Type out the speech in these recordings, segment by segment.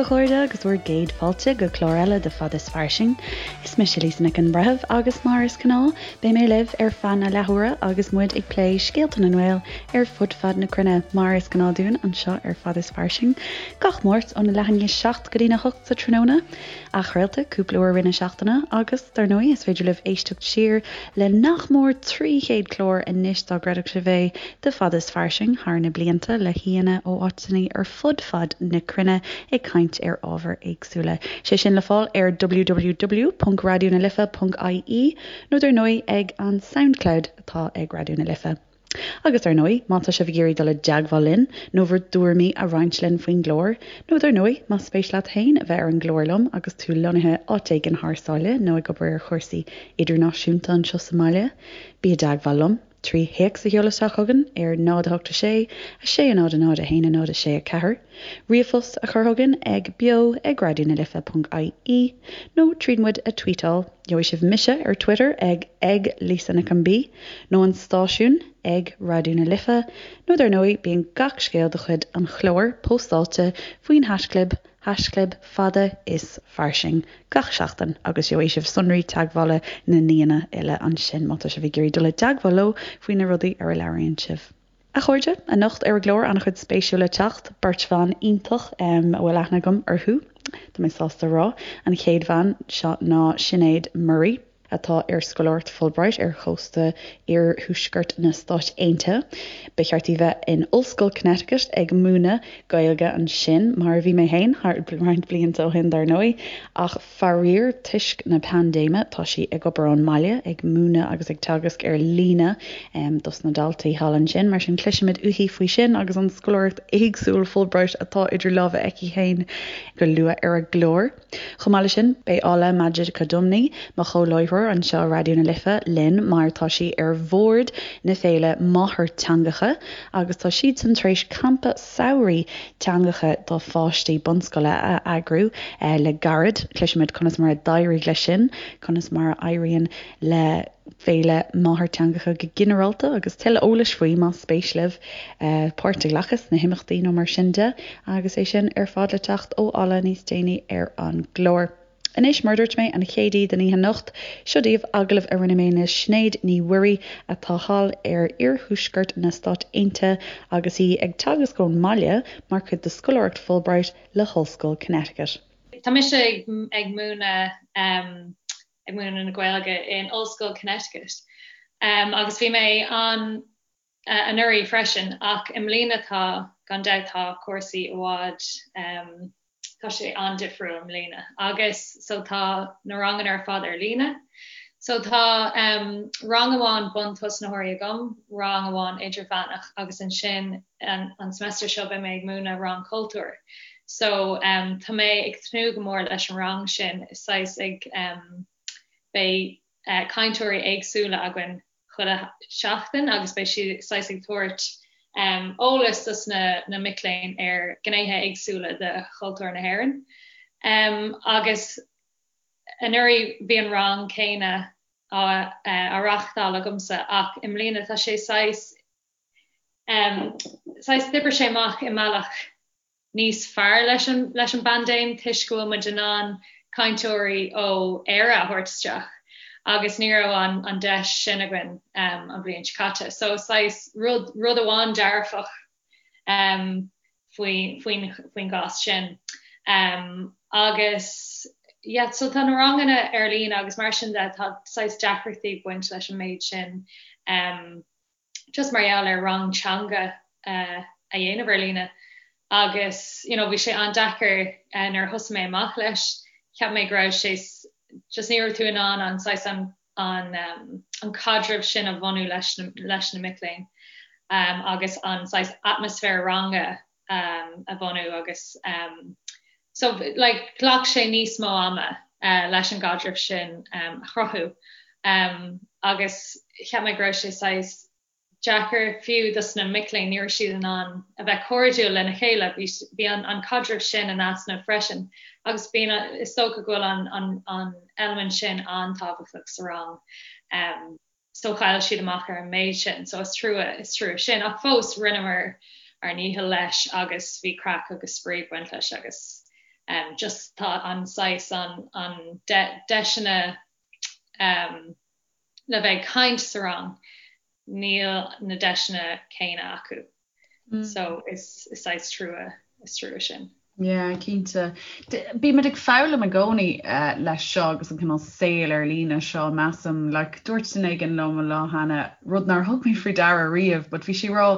a chairde agus bhur gcéad fáilte go clár eile de Fad is Fairsing. Is mise Lisa Nic an Bhreithimh agus mar is gnáth beidh mé libh ar feadh na leathuaire agus muid ag plé scéalta na nGael ar fud fad na cruinne mar is gnáth dúinn anseo ar Fad is Fairsing gach Máirt óna leath i ndiaidh 7 go dtína 8 sa tráthnóna. Athchraolta cúpla uair i rith na seachtaine agus, dar ndóigh, is féidir libh éisteacht siar le nach mór 300 clár anois dá gcreidfeadh sibh é, de Fad is Fairsing thar na blianta le haíonna ó áiteanna ar fud fad na cruinne ag caint ar ábhair éagsúla. Sé sin le fáil ar www.raidionalife.ie nó dar ndóigh ag an Soundcloud atá ag Raidió na Life. Agus dar ndóigh, má tá sibh ag iarraidh dul i dteagmháil linn, nó bhur dtuairimí a roinnt linn faoin gclár, nó dar ndóigh, más spéis leat féin a bheith ar an gclár liom agus tú lonnaithe áit éigin thar sáile nó ag obair ar chúrsaí idirnáisiúnta anseo sa mbaile, bí i dteagmháil liom trí théacs a sheoladh isteach chugainn ar 0 8 6 6 0 0 1 0 6 4, ríomhphost a chur chugainn ag beo ag raidionalife.ie nó tríd muid a tweetáil. Gheobhaidh sibh mise ar Twitter ag ag Lisa Nic an B, nó an stáisiún ag Raidió na Life, nó dar ndóigh bíonn gach scéal de chuid an chláir póstáilte faoin haischlib, haischlib fada is fairsing, gach seachtain agus gheobhaidh sibh sonraí teagmhála na n-aíonna uile ansin má tá sibh ag iarraidh dul i dteagmháil leo faoi na rudaí ar a labhraíonn sibh. A chairde, anocht ar an gclár an-chuid spéisiúil le teacht, beirt bhan iontach a bhfuil aithne agam orthu, tá mé sásta a rá. An chéad bhean seo ná Sinéad Murray, atá ar scoláireacht Fulbright ar chósta iarthuaisceart na Stáit Aontaithe. Ba cheart di bheith in Ollscoil Connecticut ag múineadh Gaeilge ansin, mar a bhí mé féin roinnt blianta ó shin dar ndóigh, ach Faraor, toisc na paindéime, tá sí ag obair ón mbaile, ag múineadh agus ag teagasc ar líne dos na daltaí thall ansin. Mar sin, cloisfimid uaithi faoi sin agus an scoláireacht éagsúil Fulbright atá idir lámha aici féin go luath ar an gclár. Chomh maith leis sin, beidh Ola Majekodunmi, mo chomhláithreoir anseo i Raidió na Life, linn mar tá sí ar bhord na féile Máthairtheangacha agus tá siadsan tar éis campa samhraidh teangacha do pháistí bunscoile a eagrú le gairid. Cloisfimid conas mar a d'éirigh leis sin, conas mar a éiríonn le Féile Máthairtheangacha go ginearálta agus tuilleadh eolais faoi más spéis libh páirt a ghlacadh sna himeachtaí nó mar sin de agus é sin ar fad le teacht ó Ola níos déanaí ar an gclár. Anois, mar a dúirt mé, an chéad aoi den oíche anocht, seo daoibh agallamh a rinne mé le Sinéad Ní Mhuirí atá thall ar iarthuaisceart na Stát Aontaithe agus í ag teagasc ón mbaile mar chuid de scoláireacht Fulbright le hOllscoil Connecticut. Tá mise ag ag múineadh ag múineadh na Gaeilge in Ollscoil Connecticut agus bhí mé ann anuraidh freisin ach i mbliana tá, gan dabht tá cúrsaí i bhfad, tá sé an-difriúil i mbliana agus so tá na ranganna ar fad ar líne. So tá rang amháin buntosnaitheoirí agam, rang amháin idirmheánach agus ansin an, an semester seo beidh mé ag múineadh rang cultúir. So tá mé ag tnúth go mór leis an rang sin, is saghas ag beidh cainteoirí éagsúla againn chuile sheachtain agus beidh siad saghas ag tabhairt eolas dos na mic léinn ar ghnéithe éagsúla de chultúr na hÉireann. Agus anuraidh bhí an rang céanna á reáchtáil agamsa ach i mbliana tá sé saghas saghas d'oibrigh sé amach i mbealach níos fearr leis an leis an bpaindéim toisc go bhfuil muid in ann cainteoirí ó Éire a thabhairt isteach agus ní raibh an an deis sin againn an bhliain seo caite. So saghas rud rud amháin dearfach faoi faoin faoin gcás sin. Agus yeah so tá na ranganna ar líne agus mar sin de tá saghas deacrachtaí ag baint leis an méid sin. Just mar gheall ar rang teanga a dhéanamh ar líne agus you know bhí sé an-deacair nuair a thosaigh mé amach leis, cheap mé go raibh sé just ní raibh tú in ann an saghas an an an caidreamh sin a bhunú leis na leis na mic léinn agus an saghas atmaisféar ranga a bhunú agus so like ghlac sé níos mó ama leis an gcaidreamh sin a chruthú agus cheap mé go raibh sé saghas deacair fiú dos na mic léinn, ní raibh siad in ann a bheith cairdiúil lena chéile, bhí an an caidreamh sin in easnamh freisin agus bíonn is dócha go bhfuil an an an eilimint sin an-tábhachtach sa rang. So chaill siad amach ar an méid sin. So is trua, is trua sin. Ach fós, rinneamar ár ndícheall leis agus bhí craic agus spraoi ag baint leis agus. Just tá an saghas an an deiseanna le bheith ag caint sa rang, níl na deiseanna céanna acu. So is saghas trua, is trua sin. Yeah, cinnte. Bímid ag foghlaim i gcónaí leis seo agus an cineál saol ar líne seo, measaim. Like, dúirt duine éigin liom an lá cheana rud nár thug mé faoi deara riamh, but bhí sí ag rá,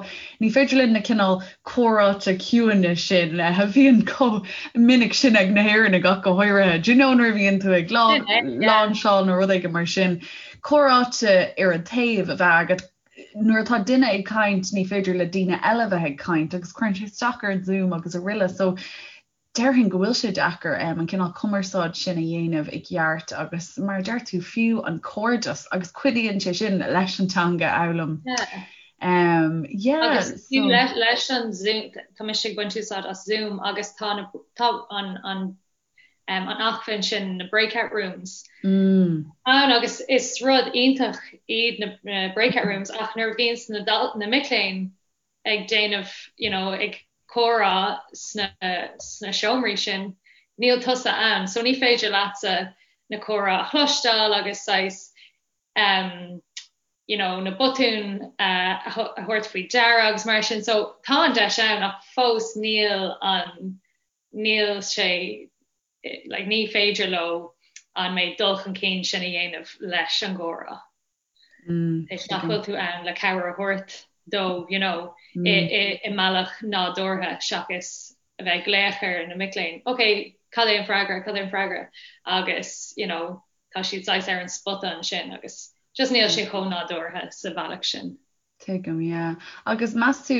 ní féidir linn na cineál comhráite ciúine sin a bhíonn chomh minic sin ag na hÉireannaigh ach go háirithe. Do you know nuair a bhíonn tú ag lainseáil nó rud éigin mar sin, comhráite ar an taobh a bheith agat, nuair atá duine ag caint ní féidir le daoine eile bheith ag caint agus cuireann sé isteach ar an Zoom agus araile so déarfainn go bhfuil sé deacair an cineál cumarsáid sin a dhéanamh i gceart agus mar a deir tú fiú an cairdeas agus cuidíonn sé sin leis an teanga a fhoghlaim. Yeah. Um, yeah, agus so... leis an Zoom, tá mise ag baint úsáid as Zoom agus tá, na, tá an, an an acmhainn sin, na breakout rooms, ann agus is rud iontach iad na breakout rooms ach nuair a bhíonns na, na mic léinn ag déanamh, you know, ag comhrá sna, sna seomraí sin, níl tusa ann so ní féidir leatsa na comhrá a chloisteáil agus saghas um, you know, na botúin a thabhairt faoi deara agus mar sin so tá an deis ann ach fós níl an níl sé, like, ní féidir leo an méid dul chun cinn sin a dhéanamh leis an gcomhrá. Is nach bhfuil tú ann le cabhair a thabhairt dó, you know, i mbealach nádúrtha seachas a bheith ag glaoch ar na mic léinn, ok, cad é an freagra, cad é an freagra? Agus, you know, tá siad saghas ar an spota ansin agus just níl sé chomh nádúrtha sa bhealach sin. Tuigim, yeah. Agus meas tú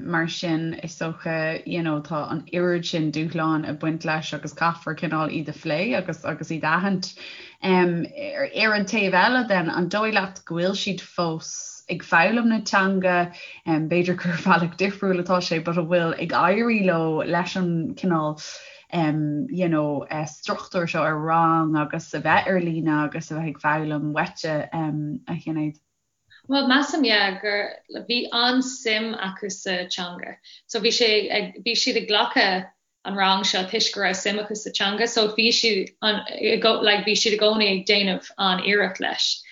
mar sin, is dócha, you know, tá an oiread sin dúshláin ag baint leis agus caithfear cineál iad a phlé agus agus iad a aithint. Ar an taobh eile then, an dóigh leat go bhfuil siad fós ag foghlaim na teanga, b'fhéidir gur ar bhealach difriúil atá sé, but an bhfuil ag éirí leo leis an cineál you know, struchtúr seo ar rang agus a bheith ar líne agus a bheith ag foghlaim uaitse, a Shinéad? Bhuel, measaim, yeah, gur, bhí an-suim acu sa teanga. So bhí sé ag, bhí siad ag glacadh an rang seo toisc go raibh suim acu sa teanga, so bhí siad an, like, bhí siad i gcónaí ag déanamh an-iarracht leis.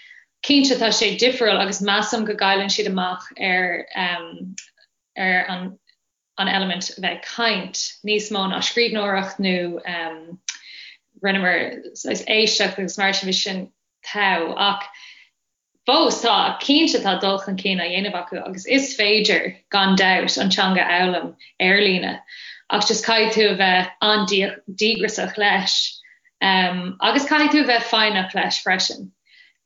Cinnte tá sé difriúil agus measaim go gcailleann siad amach ar, um, ar an, an eilimint a bheith ag caint níos mó ná scríbhneoireacht nó um, rinneamar saghas éisteacht agus mar sin bhí sin togha ach Fós, tá, cinnte tá dul chun cinn á dhéanamh acu agus is féidir, gan dabht, an teanga a fhoghlaim ar líne ach just caithfidh tú a bheith an-díograiseach leis agus caithfidh tú a bheith foighneach leis freisin.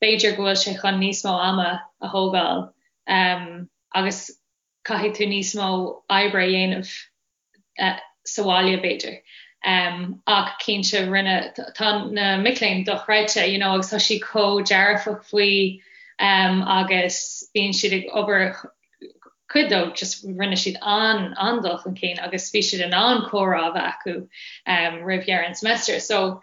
B'fhéidir go bhfuil sé chun níos mó ama a thógáil agus caithfidh tú níos mó oibre a dhéanamh sa bhaile b'fhéidir. Ach cinnte rinne, tá na mic léinn dochreidte you know agus tá siad chomh dearfach faoi agus bíonn siad ag obair cuid dóibh just rinne siad an an-dul chun cinn agus bhí siad in ann comhrá a bheith acu roimh dheireadh an semester. So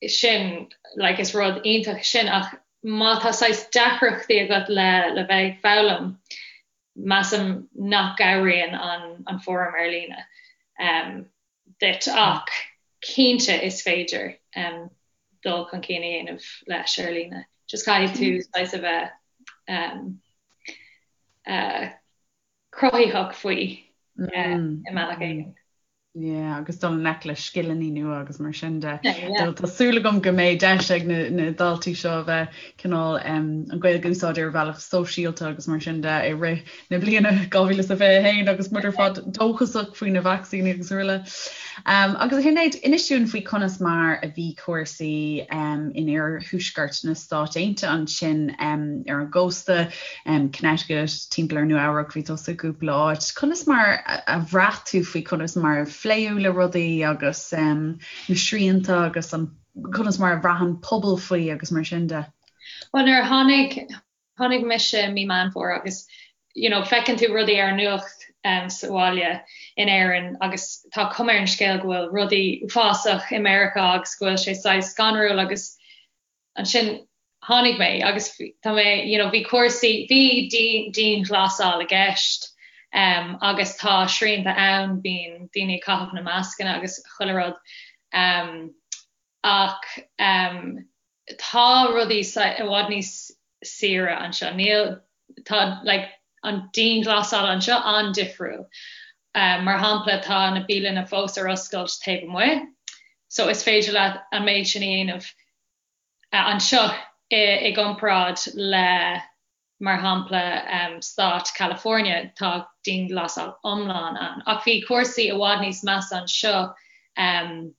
sin like is rud iontach sin ach má tá saghas deacrachtaí agat le le bheith ag foghlaim measaim nach gcabhraíonn an an fóram ar líne um duit ach cinnte is féidir um dul chun cinn a dhéanamh leis ar líne. Just caithfidh tú saghas a bheith um uh cruthaitheach faoi uh i mbealach éigin. Yeah, agus dul i ngleic le scileanna nua agus mar sin de. Yeah. Tá súil agam go mbeidh deis ag na, na daltaí seo a bheith cineál um, an Ghaeilge a úsáid ar bhealach sóisialta agus mar sin de i rith na bliana 2021 agus muid ar fad dóchasach faoi na vacsaíní agus araile. Um, agus a Shinéad, inis dúinn faoi conas mar a bhí cúrsaí um, in iarthuaisceart na Stát Aontaithe ansin um, ar an gcósta. Connecticut, timpeall ar Nua Eabhrac, bhí tusa i gcúpla áit. Conas mar a bhraith tú faoi conas mar a phléadh le rudaí agus na srianta agus an conas mar a bhraith an pobal faoi agus mar sin de? Bhuel nuair a tháinig, tháinig mise i mí Meán Fómhair agus you know feiceann tú rudaí ar an nuacht sa bhaile in Éirinn agus tá cuma ar an scéal go bhfuil rudaí uafásach i Meiriceá agus go bhfuil sé saghas scanrúil agus Ansin tháinig mé agus tá mé, you know, bhí cúrsaí, bhí dianghlasáil i gceist. Agus tá srianta ann, bíonn daoine ag caitheamh na mascanna agus chuile rud. Ach tá rudaí i bhfad níos saoire anseo. Níl, tá like an dianghlasáil anseo an-difriúil. Mar shampla tá na bialanna fós ar oscailt taobh amuigh so is féidir leat an méid sin a dhéanamh anseo i gcomparáid le mar shampla stát California tá dianghlasáil iomlán ann. Ach bhí cúrsaí i bhfad níos measa anseo an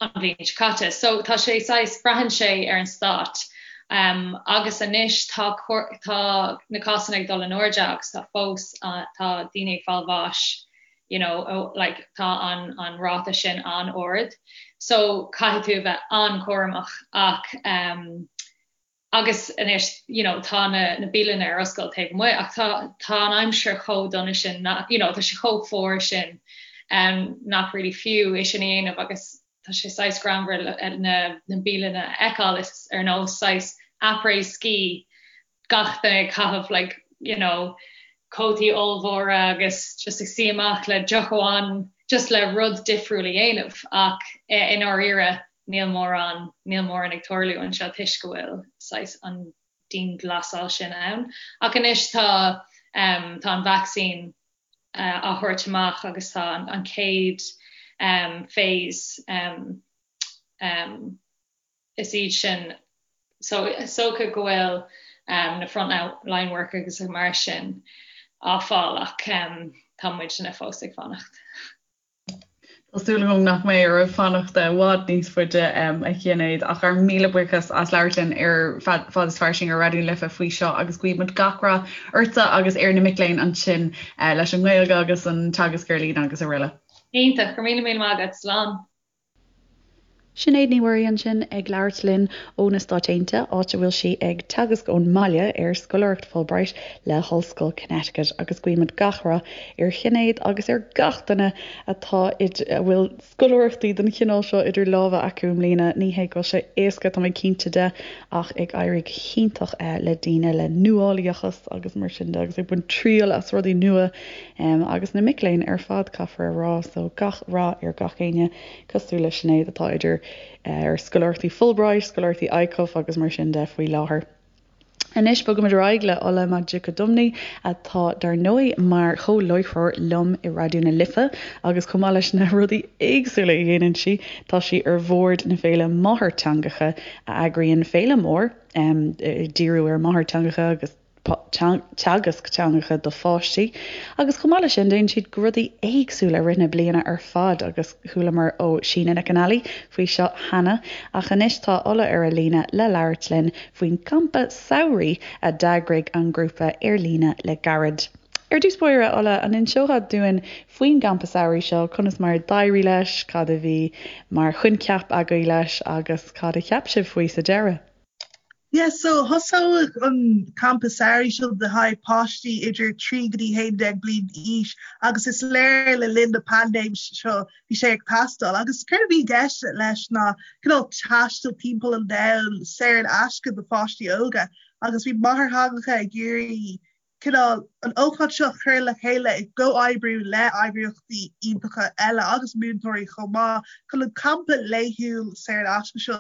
bhliain seo caite. So tá sé saghas, braitheann sé ar an stát. Agus anois tá tá na cásanna ag dul in airde agus tá fós tá daoine ag fáil bháis you know like tá an an ráta sin an-ard. So caithfidh tú a bheith an-chúramach ach um, Agus anois you know tá na na bialanna ar oscailt taobh amuigh ach tá tá an aimsir chomh dona sin nach you know tá sé chomh fuar sin um nach really fiú é sin a dhéanamh agus tá sé saghas greannmhar na na bialanna a fheiceáil is ar nós saghas après ski gach duine ag caitheamh like you know cótaí ollmhóra agus just ag suí amach le deoch amháin just le rud difriúil a dhéanamh ach i ndáiríre níl mórán, níl mórán ag tarlú anseo toisc go bhfuil saghas an dianghlasáil sin ann. Ach anois tá, tá an vacsaín á thabhairt amach agus tá an chéad phase, is iad sin, so is dócha go bhfuil na front line workers agus mar sin á fáil ach tá muidne fós ag fanacht. Tá súil agam nach mbeidh oraibh fanacht i bhfad níos faide, a Shinéad, ach ár míle buíochas as labhairt linn ar Fad is Fairsing ar Raidió na Life faoi seo agus guímid gach rath ortsa agus ar na mic léinn ansin leis an nGaeilge agus an teagasc ar líne agus araile. Iontach, go raibh míle míle maith agat. Slán. Sinéad Ní Mhuirí ansin ag labhairt linn ó na Stáit Aontaithe, áit a bhfuil sí ag teagasc ón mbaile ar scoláireacht Fulbright le hOllscoil Connecticut agus guímid gach rath ar Shinéad agus ar gach duine atá a bhfuil scoláireachtaí den chineál seo idir lámha acu i mbliana. Ní hé go bhfuil sé éasca, tá mé cinnte de, ach ag éirí go hiontach le daoine le nuálaíochas agus mar sin de agus ag baint triail as rudaí nua agus na mic léinn ar fad, caithfear a rá. So gach rath ar gach éinne. cosúil le Sinéad atá idir ar scoláireachtaí Fulbright, scoláireachtaí ICUF agus mar sin de faoi láthair. Anois bogaimid ar aghaidh le Ola Majekodunmi atá dar ndóigh mar chomh-láithreoir liom i Raidió na Life agus chomh maith leis na rudaí éagsúla a dhéanann sí, tá sí ar bhord na Féile Máthairtheangacha a eagraíonn féile mór ag díriú ar máthairtheangacha agus teagasc teangacha do pháistí agus chomh maith leis sin déanann siad rudaí éagsúla i rith na bliana ar fad agus chualamar ó Síne Nic an Ailí faoi seo cheana ach anois tá Ola ar an líne le labhairt linn faoin gcampa samhraidh a d'eagraigh an grúpa ar líne le gairid. Ar dtús báire, Ola, an inseofá dúinn faoin gcampa samhraidh seo, conas mar a d'éirigh leis, cad a bhí mar choincheap agaibh leis agus cad a cheap sibh faoi sa deireadh? Yeah so thosaigh an campa samhraidh seo le haghaidh páistí idir 3 go dtí 11 bliain d'aois agus is léir le linn na paindéim seo bhí sé ag teastáil agus céard a bhí i gceist leis ná cineál taisteal timpeall an domhain saor in aisce do pháistí óga agus bhí máthairtheangacha ag iarraidh cineál an ócáid seo a chur le chéile i gcomhoibriú le eagraíochtaí iontacha eile agus múinteoirí chomh maith chun an campa laethúil saor in aisce seo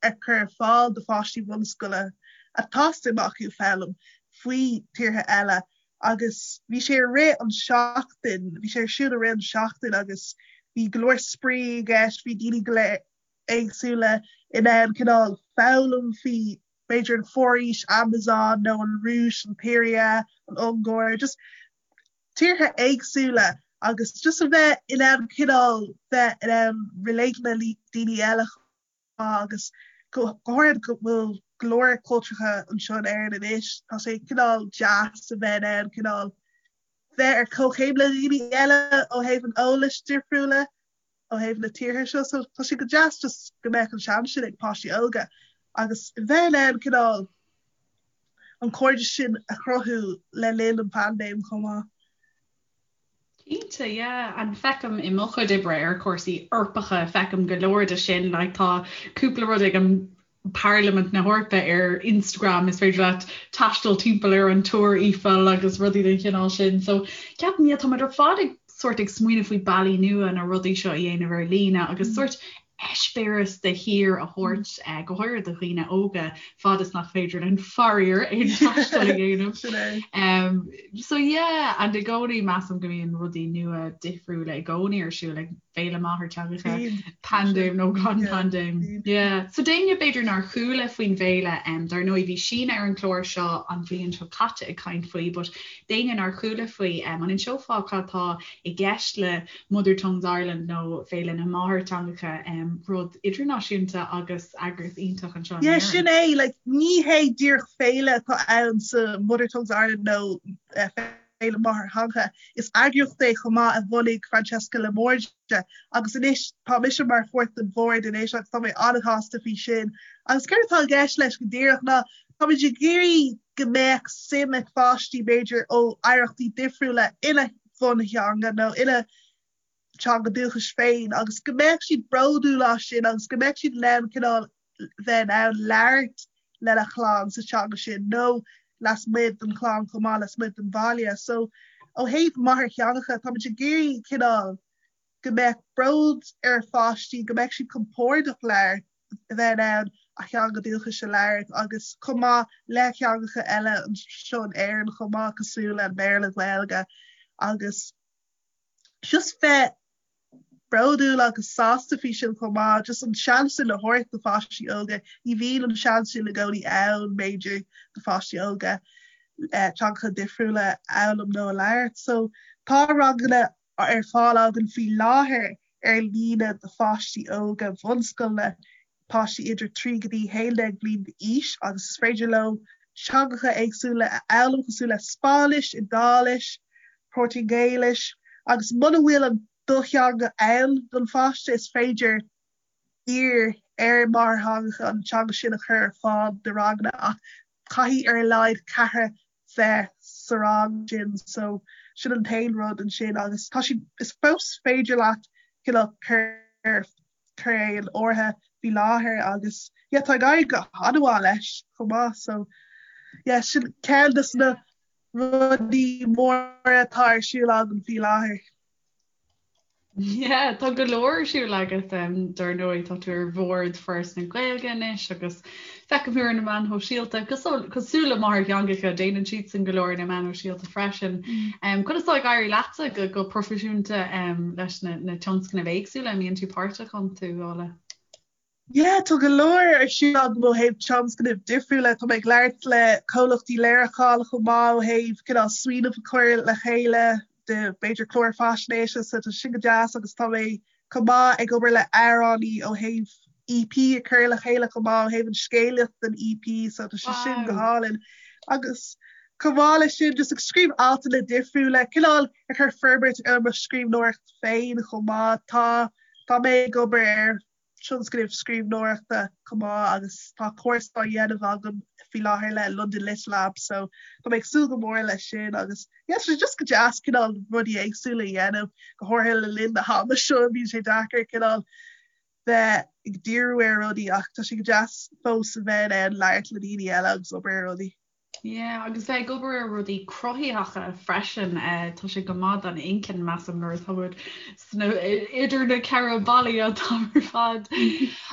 a chur ar fáil do pháistí bunscoile atá suim acu foghlaim faoi tíortha eile agus bhí sé i rith an seachtain, bhí sé ar siúl i rith an seachtain agus bhí go leor spraoi i gceist, bhí daoine go léir éagsúla in ann cineál foghlaim faoi b'fhéidir an foraois Amazon nó an Rúis, an tSiria, an Ungáir, just tíortha éagsúla agus just a bheith in ann cineál bheith in ann relate le daoine eile agus go háirithe go bhfuil go leor cultúrtha anseo in Éirinn anois, tá sé cineál deas a bheith in ann cineál bheith ar comhchéim le daoine eile ó thaobh an eolais difriúla. ó thaobh na tíortha seo so tá sé go deas just go mbeadh an seans sin ag páistí óga agus bheith in ann cineál an cairdeas sin a chruthú le linn an phaindéim chomh maith. Cinnte, yeah. And feicim i mo chuid oibre ar chúrsaí Eorpacha, feicim go leor de sin, like tá cúpla rud ag an. Parlaimint na hEorpa ar Instagram, is féidir leat taisteal timpeall ar an Túr Eiffel agus rudaí den chineál sin. So ceapaim, yeah, táimid ar fad ag sórt ag smaoineamh faoi bealaí nua na rudaí seo a dhéanamh ar líne agus sórt eispéireas de thír a thabhairt, go háirithe do dhaoine óga, fad is nach féidir linn faraor aon taisteal a dhéanamh. Sin é. So yeah, and i gcónaí measaim go mbíonn rudaí nua difriúla i gcónaí ar siúl ag Féile Máthairtheangacha, paindéim nó gan paindéim. Yeah. So d'éinne b'fhéidir nár chuala faoin bhféile, dar ndóigh bhí Síne ar an chlár seo an bhliain seo caite ag caint faoi, but d'éinne nár chuala faoi, an inseofá cad tá i gceist le Mother Tongues Ireland nó Féile na Máthairtheangacha, rud idirnáisiúnta agus eagraíocht iontach anseo in Yeah, sin é, like, ní hé díreach féile atá ann sa Mother Tongues Ireland nó Féile Máthairtheangacha. Is eagraíocht é chomh maith a bhunaigh Francesca La Morgia agus anois tá mise mar pháirt den bhord anois agus tá mé an-shásta faoi sin. Agus céard atá i gceist leis go díreach ná táimid ag iarraidh go mbeadh suim ag pháistí b'fhéidir ó oidhreachtaí difriúla ina bhuntheanga nó ina dteanga dúchais féin agus go mbeadh siad bródúil as sin agus go mbeadh siad in ann cineál bheith in ann labhairt lena chlann sa teanga sin nó lasmuigh den chlann chomh maith, lasmuigh den bhaile. So ó thaobh máthairtheangacha, táimid ag iarraidh cineál go mbeadh bród ar pháistí, go mbeadh siad compordach labhairt, a bheith in ann a theanga dúchais a labhairt agus chomh maith le teangacha eile anseo in Éirinn chomh maith cosúil le Béarla, Gaeilge agus just bheith bródúil agus sásta faoi sin chomh maith, just an seans sin a thabhairt do pháistí óga, ní bhíonn an seans sin i gcónaí ann b'fhéidir do pháistí óga teangacha difriúla a fhoghlaim nó a labhairt. So tá ranganna ar fáil againn faoi láthair ar líne do pháistí óga bhunscoile, páistí idir 3 go dtí 11 bliain d'aois agus is féidir leo teangacha éagsúla a fhoghlaim cosúil le Spáinnis, Iodáilis, Portaingéilis agus muna bhfuil an do theanga ann don pháiste is féidir iarr ar máthairtheangacha an teanga sin a chur ar fáil do ranganna ach caithfidh ar a laghad ceathrar bheith sa rang sin so sin an t-aon rud ansin agus tá siad is fós féidir leat cineál cur cur é in áirithe faoi láthair agus yeah tá ag éirí go han-mhaith leis chomh maith so yeah sin ceann de na rudaí móra atá ar siúl agam faoi láthair. Yeah, tá go leor ar siúl agat dar ndóigh, tá tú ar bhord Foras na Gaeilge anois agus feicim thú ar na meáin shóisialta, cosúil le máthairtheangacha, déanann siadsan go leor ar na meáin shóisialta freisin. Conas atá ag éirí leatsa go go proifisiúnta leis na na tionscnaimh éagsúla a mbíonn tú páirteach iontu, Ola? Yeah, tá go leor ar siúl agam ó thaobh tionscnaimh difriúla. Tá mé ag labhairt le comhlachtaí léiriúcháin chomh maith ó thaobh cineál smaoineamh a chur le chéile de b'fhéidir clár faisnéise so tá sin go deas agus tá mé chomh maith ag obair le amhránaí ó thaobh EP a chur le chéile chomh maith ó thaobh an scéalaíocht den EP so tá sé sin go hálainn. Agus chomh maith leis sin just ag scríobh altanna difriúla, cineál ag cur forbairt ar mo scríbhneoireacht féin chomh maith. Tá Tá mé ag obair ar tionscnamh scríbhneoireachta chomh maith agus tá cúrsa á dhéanamh agam faoi láthair le London Lit Lab so tá mé ag súil go mór leis sin agus yeah tá sé just go deas cineál rudaí éagsúla a dhéanamh go háirithe le linn na hama seo bíonn sé deacair cineál bheith ag díriú ar rudaí ach tá sé go deas fós a bheith in ann labhairt le daoine eile agus obair ar rudaí. Yeah, agus bheith ag obair ar rudaí cruthaitheacha freisin, tá sé go maith don inchinn, measaim, nuair atá muid sna, idir na ceithre ballaí an t-am ar fad.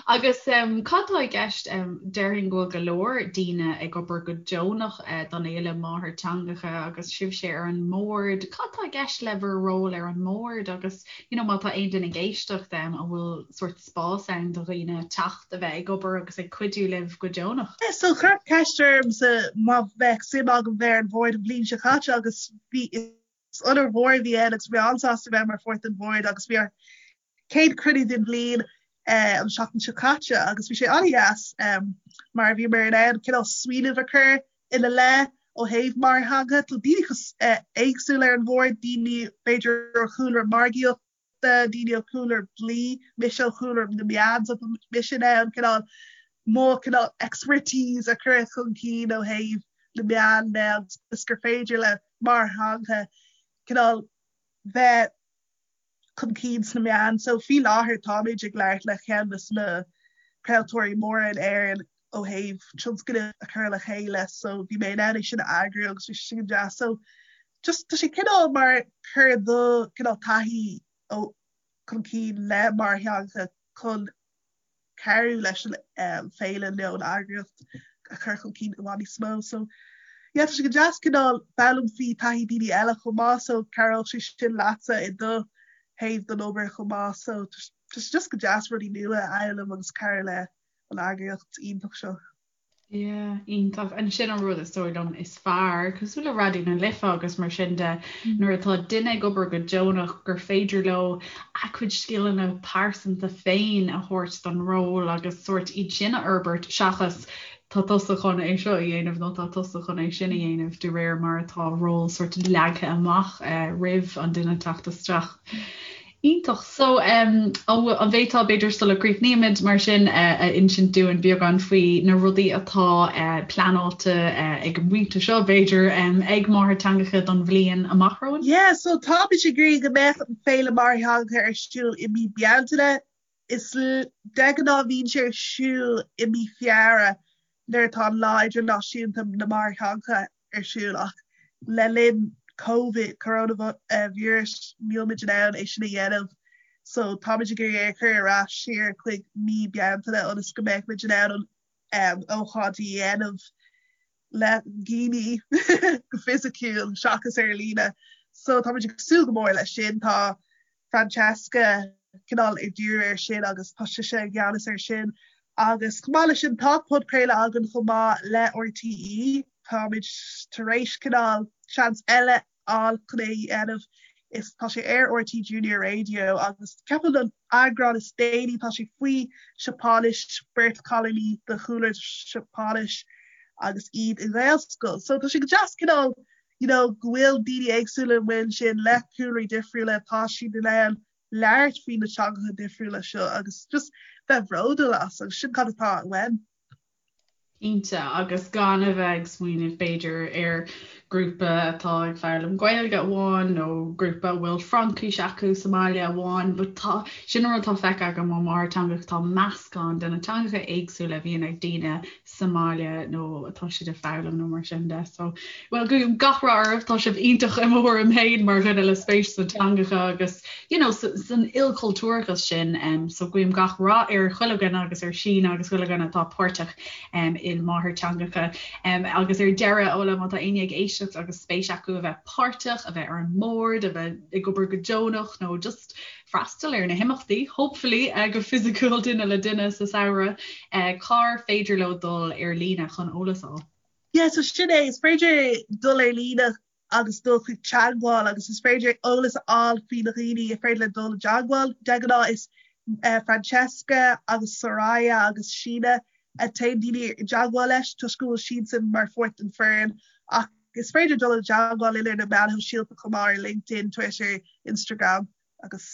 Agus cad tá i gceist, déarfainn go bhfuil go leor daoine ag obair go deonach don Fhéile Máthairtheangacha agus sibhse ar an mbord. Cad tá i gceist le bhur ról ar an mbord agus, you know, má tá aon duine ag éisteacht, an bhfuil sórt spás ann do dhaoine teacht a bheith ag obair agus ag cuidiú libh go deonach. So cuireadh ceist ormsa má bheadh suim agam bheith ar an bhord an bhliain seo caite agus bhí is onóir mhór a bhí ann agus bhí mé an-sásta bheith mar pháirt den bhord agus bhí ár céad cruinniú den bhliain an seachtain seo caite agus bhí sé an-deas mar bhíomar in ann cineál smaoineamh a chur ina leith ó thaobh máthairtheanga. Tá daoine éagsúla ar an bhord, daoine b'fhéidir ó chúlra margaíochta, daoine ó chúlra dlí, mise ó chúlra na meán, so tá mise in ann cineál mo cineál expertise a chur chun cinn ó thaobh na meán de agus gur féidir le máthairtheanga cineál bheith chun cinn sna meáin. So faoi láthair táimid ag labhairt le ceann de na craoltóirí móra in Éirinn. ó thaobh tionscnamh a chur le chéile so bhí mé in ann é sin a eagrú agus bhí sé sin go deas so just tá sé cineál mar cur do cineál taithí ó chun cinn le máthairtheangacha chun cabhrú leis an féile nó an eagraíocht a chur chun cinn i bhfad níos mó. So yeah tá sé go deas cineál foghlaim faoi taithí daoine eile chomh maith so cabhróidh sé sin leatsa i do thaobh den obair chomh maith so tá sé just go deas rudaí nua a fhoghlaim agus cabhrú le an eagraíocht iontach seo. Yeah, iontach. And sin an rud is dóigh liom is fearr, cosúil le Raidió na Life agus mar sin de, nuair atá duine ag obair go deonach gur féidir leo a gcuid scileanna pearsanta féin a thabhairt don ról agus sórt iad sin a fhorbairt seachas tá tusa chun é seo a dhéanamh nó tá tusa chun é sin a dhéanamh de réir mar atá ról sórt leagtha amach roimh an duine teacht isteach. Iontach. So, an bhféadfá, b'fhéidir sula gcríochnaímid, mar sin, a insint dúinn beagán faoi na rudaí atá pleanáilte ag an bpointe seo, b'fhéidir, ag Máthairtheangacha don bhliain amach romhainn? Yeah, so táimid ag iarraidh go mbeadh an Féile Máthairtheangacha ar siúl i mí Bealtaine. Is de ghnáth bíonn sé ar siúl i mí Feabhra nuair atá an Lá Idirnáisiúnta na Máthairtheangacha ar siúl ach le linn Covid, coronavirus, níl muid in ann é sin a dhéanamh so táimid ag iarraidh é a chur ar ais siar chuig mí Bealtaine ionas go mbeidh muid in ann an ócáid a dhéanamh le daoine go fisiciúil seachas ar líne. So táimid ag súil go mór leis sin. Tá Francesca cineál ag díriú air sin agus tá sise i gceannas air sin. Agus chomh maith leis sin tá podchraoladh againn chomh maith le RTÉ. Táimid tar éis cineál seans eile a fháil chun é a dhéanamh. Is tá sé ar RTÉ Junior Radio agus ceapaim an eagrán is déanaí tá sé faoi Seapáinis, beirt chailíní de chúlra Seapáinis agus iad i nGaelscoil. So tá sé go deas cineál you know go bhfuil daoine éagsúla amuigh ansin le cúlraí difriúla, tá siad in ann labhairt faoi na teangacha difriúla seo agus just bheith bhródúil as agus sin cad atá uaim. Cinnte, agus gan a bheith ag smaoineamh b'fhéidir ar grúpa atá ag foghlaim Gaeilge amháin nó grúpa a bhfuil Fraincis acu sa mbaile amháin, but tá, sin an rud atá feicthe agam ó Máthairtheangacha, tá meascán de na teangacha éagsúla a bhíonn ag daoine sa mbaile nó atá siad ag foghlaim nó mar sin de. So, well, guím gach rath oraibh, tá sibh iontach i mo thuairim féin mar dhuine le spéis sna teangacha agus, you know, san ilchultúrachas sin. Um, so guím gach rath ar chuile dhuine agus ar Síne agus chuile dhuine atá páirteach um, i máthairtheangacha. Um, agus ar deireadh, Ola, má tá éinne ag éisteacht agus spéis acu a bheith páirteach, a bheith ar an mbord, a bheith ag obair go deonach nó just freastal ar na himeachtaí, hopefully, go fisiciúil duine le duine sa samhradh, cár féidir leo dul ar líne chun eolas a fháil? Yeah, so sin é, is féidir dul ar líne agus dul chuig teagmháil agus is féidir eolas a fháil faoi na dhaoine is féidir le dul i dteagmháil. De ghnáth is Francesca agus Soraya agus Síne a téann daoine i dteagmháil leis toisc go bhfuil siadsan mar pháirt den foireann ach is féidir dul i dteagmháil linn ar na meáin shóisialta chomh maith ar LinkedIn, Twitter, Instagram agus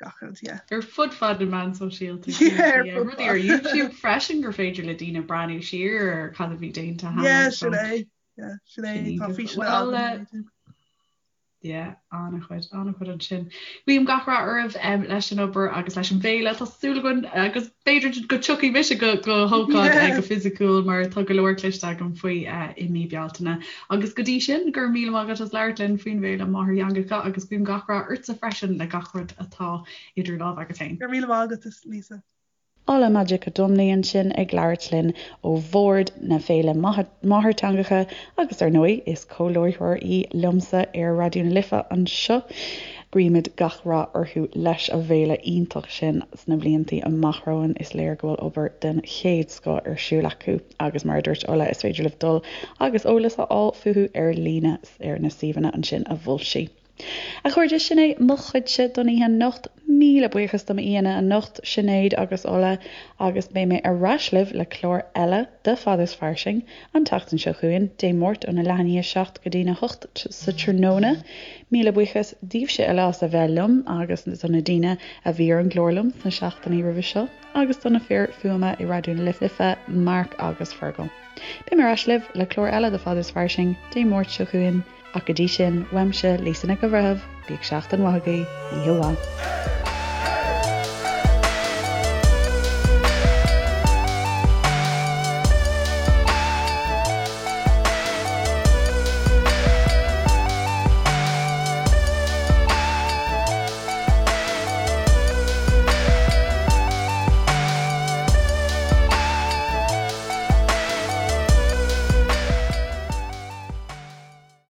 gach rud, yeah. Ar fud fad na meán sóisialta, yeah, ar fud rudaí ar YouTube freisin gur féidir le daoine breathnú siar ar cad a bhí déanta cheana. Yeah, sin é. Yeah, sin é. Tá físeanna againn ar YouTube. Yeah, an-chuid, an-chuid ansin. Guím gach rath oraibh leis an obair agus leis an bhféile. Tá súil againn agus b'fhéidir go dtiocfaidh mise go go hócáid go fisiciúil mar tá go leor cloiste agam faoi i mí Bealtaine. Agus go dtí sin, go raibh míle maith agat as labhairt linn faoin bhféile Máthairtheangacha agus guím gach rath ortsa freisin le gach rud atá idir lámha agat féin. Go raibh míle maith agat, Lisa. Ola Majekodunmi ansin ag labhairt linn ó bhord na Féile Máthairtheangacha agus ar ndóigh is comhláithreoir í liomsa ar Raidió na Life anseo. Guímid gach rath orthu leis an bhféile iontach sin sna bliantaí amach romhainn. Is léir go bhfuil obair den chéad scoth ar siúl acu agus mar a dúirt Ola is féidir libh dul agus eolas a fháil fúthu ar líne ar na suíomhanna ansin a mhol sí. A chairde, sin é mo chuidse don oíche anocht. Míle buíochas do m'aíonna anocht, Sinéad agus Ola, agus beidh mé ar ais libh le clár eile de Fad is Fairsing an tseachtain seo chugainn, Dé Máirt óna leath i ndiaidh a 7 go dtína 8 sa tráthnóna. Míle buíochas daoibhse uile as a bheith liom agus do na daoine a bhí ar an gclár liom sna seachtainí roimhe seo agus do na fir fuaime i Raidió na Life, Mark agus Fergal. Beidh mé ar ais libh le clár eile de Fad is Fairsing Dé Máirt seo chugainn. Ach go dtí sin, uaimse, Lisa Nic an Bhreithimh, bíodh seachtain mhaith agaibh, oíche mhaith.